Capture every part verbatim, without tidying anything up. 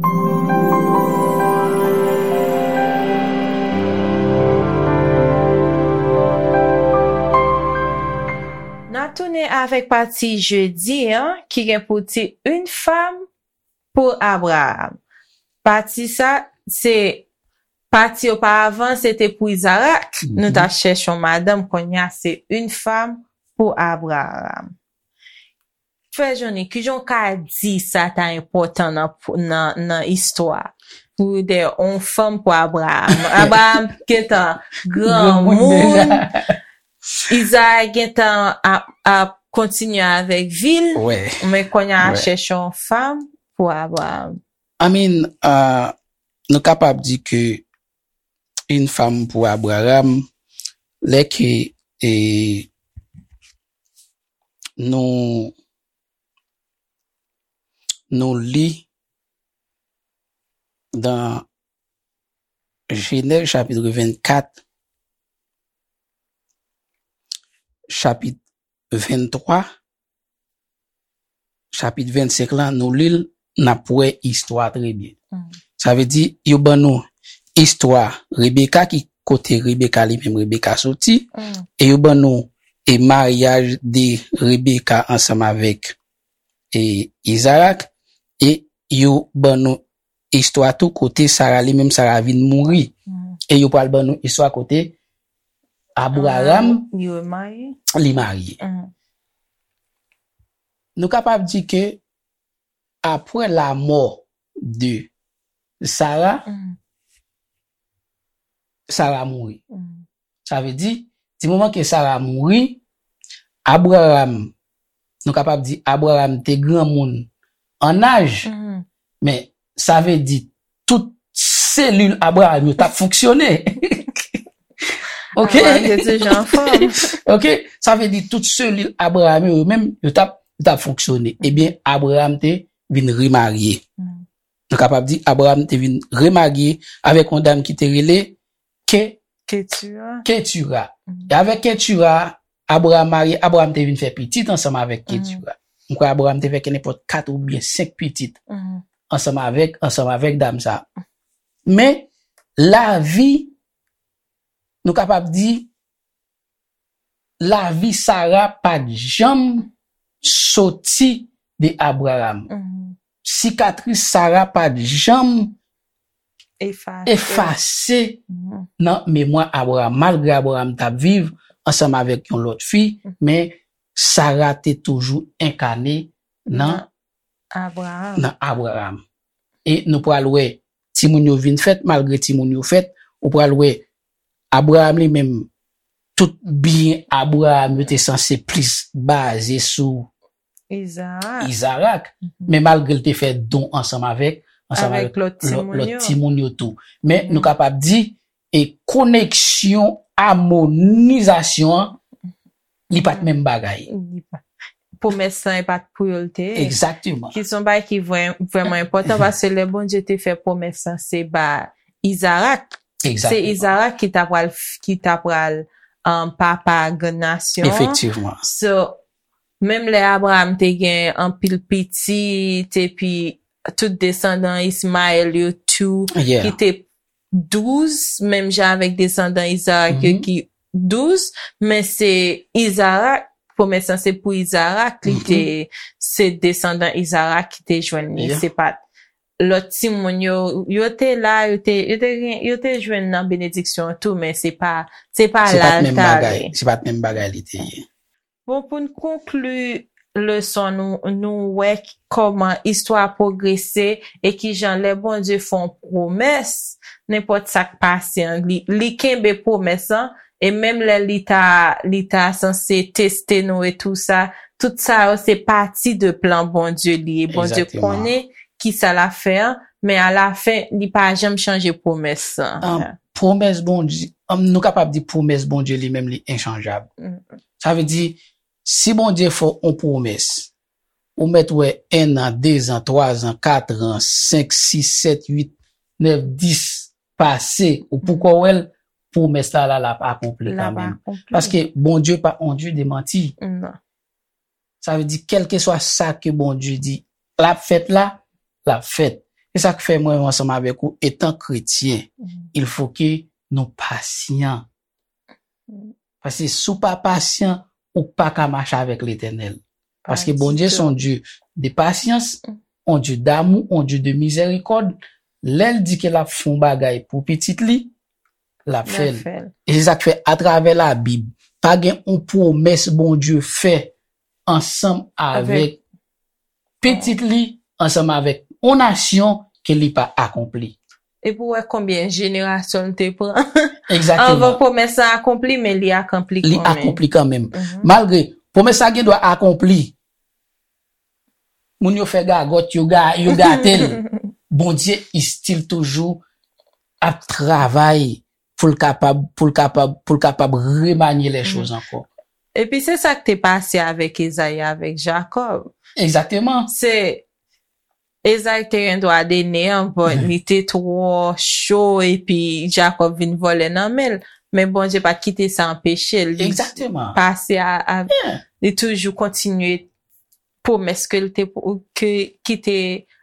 N a tounen avèk pati jedi an, ki gen pou tit Une femme pour Abraham. Pati sa, se pati oparavan, se te pou Izarak. Nou ta chèche yon madanm, kounye a se Une femme pour Abraham. Frè Johnny, kijan w ka di sa ta enpòtan nan, nan, nan istwa? Pou de yon fanm pou Abraham. Abraham gentan granmoun. Izarak gentan ap, ap kontinye avèk vi l. Men kounye a chèche yon fanm pou Abraham. I mean, uh, nou kapab di ke Une femme pour Abraham, lè ke e, nou nou li dan Jenèz chapit vennkat, chapit venntwa, chapit vennsenk lan, nou li l, n ap wè istwa trè byen. Sa vle di, yo ban nou istwa Rebeka, ki kote Rebeka li menm Rebeka soti, e yo ban nou e maryaj de Rebeka ansanm avèk e Izarak, e yo ban nou istwa tou kote Sara li menm Sara vin mouri. E yo pral ban nou istwa kote Abraham li marye. Nou kapab di ke apre lamò de Sara, Sara mouri. Sa vle di, di moman ke Sara mouri, Abraham, nou kapab di Abraham te granmoun an aj, men sa vle di tout selil Abraham yo t ap fonksyone. Ok? Abraham te toujou anfòm. Ok? Sa vle di tout selil Abraham yo menm, yo t ap, yo t ap fonksyone. Ebyen, Abraham te vin remarye. Nou kapab di Abraham te vin remarye avèk yon dam ki te rele Ke Ketura. Ketura. E avèk Ketura, Abraham marye, Abraham te vin fè pitit ansanm avèk Ketura. M kwè Abraham te fè ke nenpòt kat oubyen senk pitit ansanm avèk, ansanm avèk dam sa. Men lavi, nou kapab di, lavi Sara pa t janm soti de Abraham. Sikatris Sara pa t janm efase nan memwa Abraham. Malgre Abraham t ap viv ansanm avèk yon lòt fi, men Sara te toujou enkane nan, nan Abraham. E nou pral wè timoun yo vin fèt, malgre timoun yo fèt, ou pral wè Abraham li menm, tout byen Abraham yo te sanse plis baze sou Izarak. Men malgre l te fè don ansanm avèk, ansanm avèk lòt timoun yo tou. Men nou kapab di, e koneksyon, amonizasyon an, li pa t menm bagay. Pwomès lan e pa t pou yo l te ye. Egzakteman. Ki se yon bagay ki vrèman enpòtan, paske lè Bondye te fè pwomès lan, se ba Izarak. Se Izarak ki ta pral, ki ta pral um, papa grann nasyon an. Efektivman. So, menm lè Abraham te gen anpil pitit, epi tout desandan Ismayèl yo tou, ki te douz, menm jan avèk desandan Izarak yo ki douz, men se Izarak, pwomès lan se pou Izarak, li te, se desandan Izarak ki te jwenn li, se pa t lòt timoun yo, yo te la, yo te, yo te gen, yo te jwenn nan benediksyon an tou, men se pa, se pa la l t ale. Se pa t menm bagay li te ye. Bon, pou n konkli leson nou, nou wè kòman istwa pwogrese e kijan lè Bondye fè yon pwomès, nenpòt sa k pase an, li, li kenbe pwomès lan, e menm lè li ta, li ta sanse teste nou e tou sa, tout sa yo se pati de plan Bondye li ye. Bondye konnen kisa l ap fè an, men alafen, li pa janm chanje pwomès lan. Pwomès Bondye, nou kapab di pwomès Bondye li menm li enchanjab. Sa vle di, si Bondye fè w yon pwomès, ou mèt wè en an, de zan, twa zan, kat an, senk, sis, sèt, uit, nèf, dis pase, ou poko wè l, pwomès la la, l ap akonpli kanmenm. Paske Bondye pa on Dye de manti. Sa vle di, kèlkeswa sa ke Bondye di l ap fèt la, l ap fèt. Se sa k fè mwen, ansanm avèk ou, etan kretyen, il faut que nou pasyan. Paske si w pa pasyan, ou pa ka mache avèk Letènèl. Paske Bondye se yon Dye de pasyans, yon Dye damou, yon Dye de mizèrikòd. Lè l di ke l ap fè yon bagay pou pitit li, l ap fè l. E se sa k fè, atravè Labib, pa gen yon pwomès Bondye fè ansanm avèk pitit li, ansanm avèk yon nasyon ke li pa akonpli. Epi w wè konbyen jenerasyon l te pran anvan pwomès la akonpli, men li akonpli kanmenm. Li akonpli kanmenm. Malgre pwomès la gen dwa akonpli, moun yo fè gagòt, yo ga, yo gate l. Bondye still toujou ap travay pou l kapab, pou l kapab, pou l kapab remanye lè choz ankò. Epi se sa k te pase avèk Ezayi, avèk Jakòb. Egzakteman. Se Ezayi te gen dwa de neyan, but li te twò cho epi Jakòb vin vòlè nan men l. Men Bondye pa t kite sa anpeche l. Li pase a, a li toujou kontinye pwomès ke l te, ke, ki te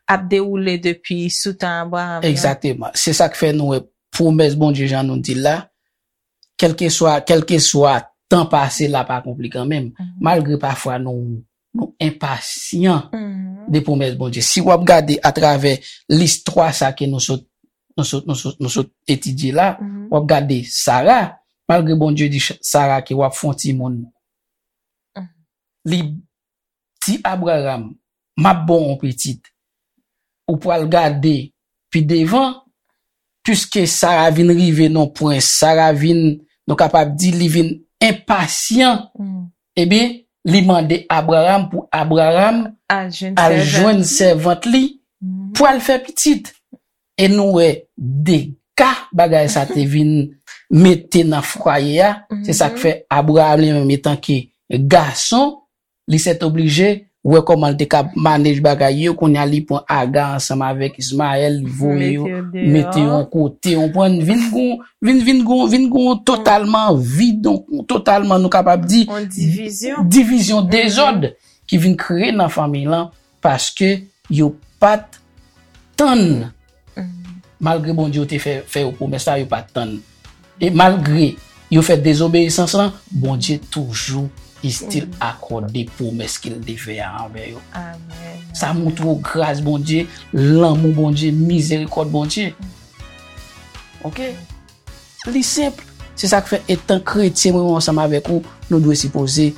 ap dewoule depi sou tan Abraram nan. Egzakteman. Se sa k fè nou wè pwomès Bondye, jan nou di l la, kèlkeswa, kèlkeswa tan pase l ap akonpli kanmenm, malgre pafwa nou, nou enpasyan de pwomès Bondye. Si w ap gade atravè listwa sa ke nou sot, nou sot, nou sot, nou sot etidye la, w ap gade Sara, malgre Bondye di Ch-, Sara ke w ap fè yon timoun, li di Abraram, "M ap ba w yon pitit." Ou pral gade pi devan, piske Sara vin rive nan pwen, Sara vin, nou kapab di, li vin enpasyan. Ebyen, li mande Abraram pou Abraram al jwenn sèvant li pou al fè pitit. E nou wè dega bagay sa te vin mete nan fwaye a. Se sa k fè Abraram li menm, etanke gason, li sètoblije wè kòman l te ka manej bagay yo. Kounye a, li pran Aga ansanm avèk Ismayèl, li voye yo, mete yo yon kote, yon pwen, vin gon, vin, vin gon, vin gon totalman vid, yon totalman, nou kapab di, divizyon, divizyon, dezòd ki vin kreye nan fanmi lan, paske yo pa t tann. Malgre Bondye te fè, fè yo pwomès la, yo pa t tann. E malgre yo fè dezobeyisans lan, Bondye toujou still akòde pwomès ke l te fè a anvè yo. Sa montre w gras Bondye, lanmou Bondye, mizerikòd Bondye. Oke? Li senp. Se sa k fè, etan kretyen, mwen menm ansanm avèk ou, nou dwe sipoze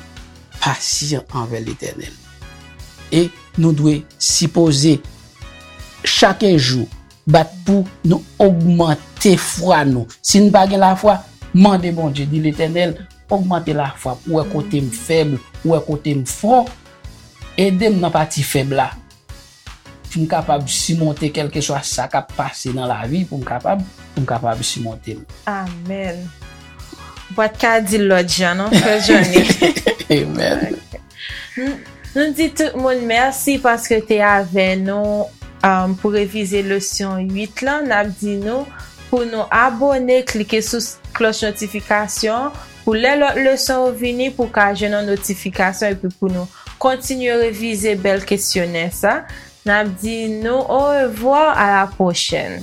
pasyan anvè Letènèl. E nou dwe sipoze chak jou bat pou nou ogmante fwa nou. Si n pa gen lafwa, mande Bondye, di, "Letènèl, ogmante lafwa m, ou wè kote m fèb, ou wè kote m fò, ede m nan pati fèb la." Pou m kapab simonte kèlkeswa sa k ap pase nan lavi, pou m kapab, pou m kapab simonte l. Amèn. Ou pa t ka di l lòt jan, non, frè Johnny? Amen. Nou, nou di tout moun mèsi paske te avè nou, um, pou revize leson uit lan. N ap di nou pou nou abòne, klike sou s-, klòch notifikasyon pou lè lòt leson yo vini, pou w ka jwenn yon notifikasyon epi pou nou kontinye revize bèl kesyonè sa. N ap di nou orevwa, a la pwochèn.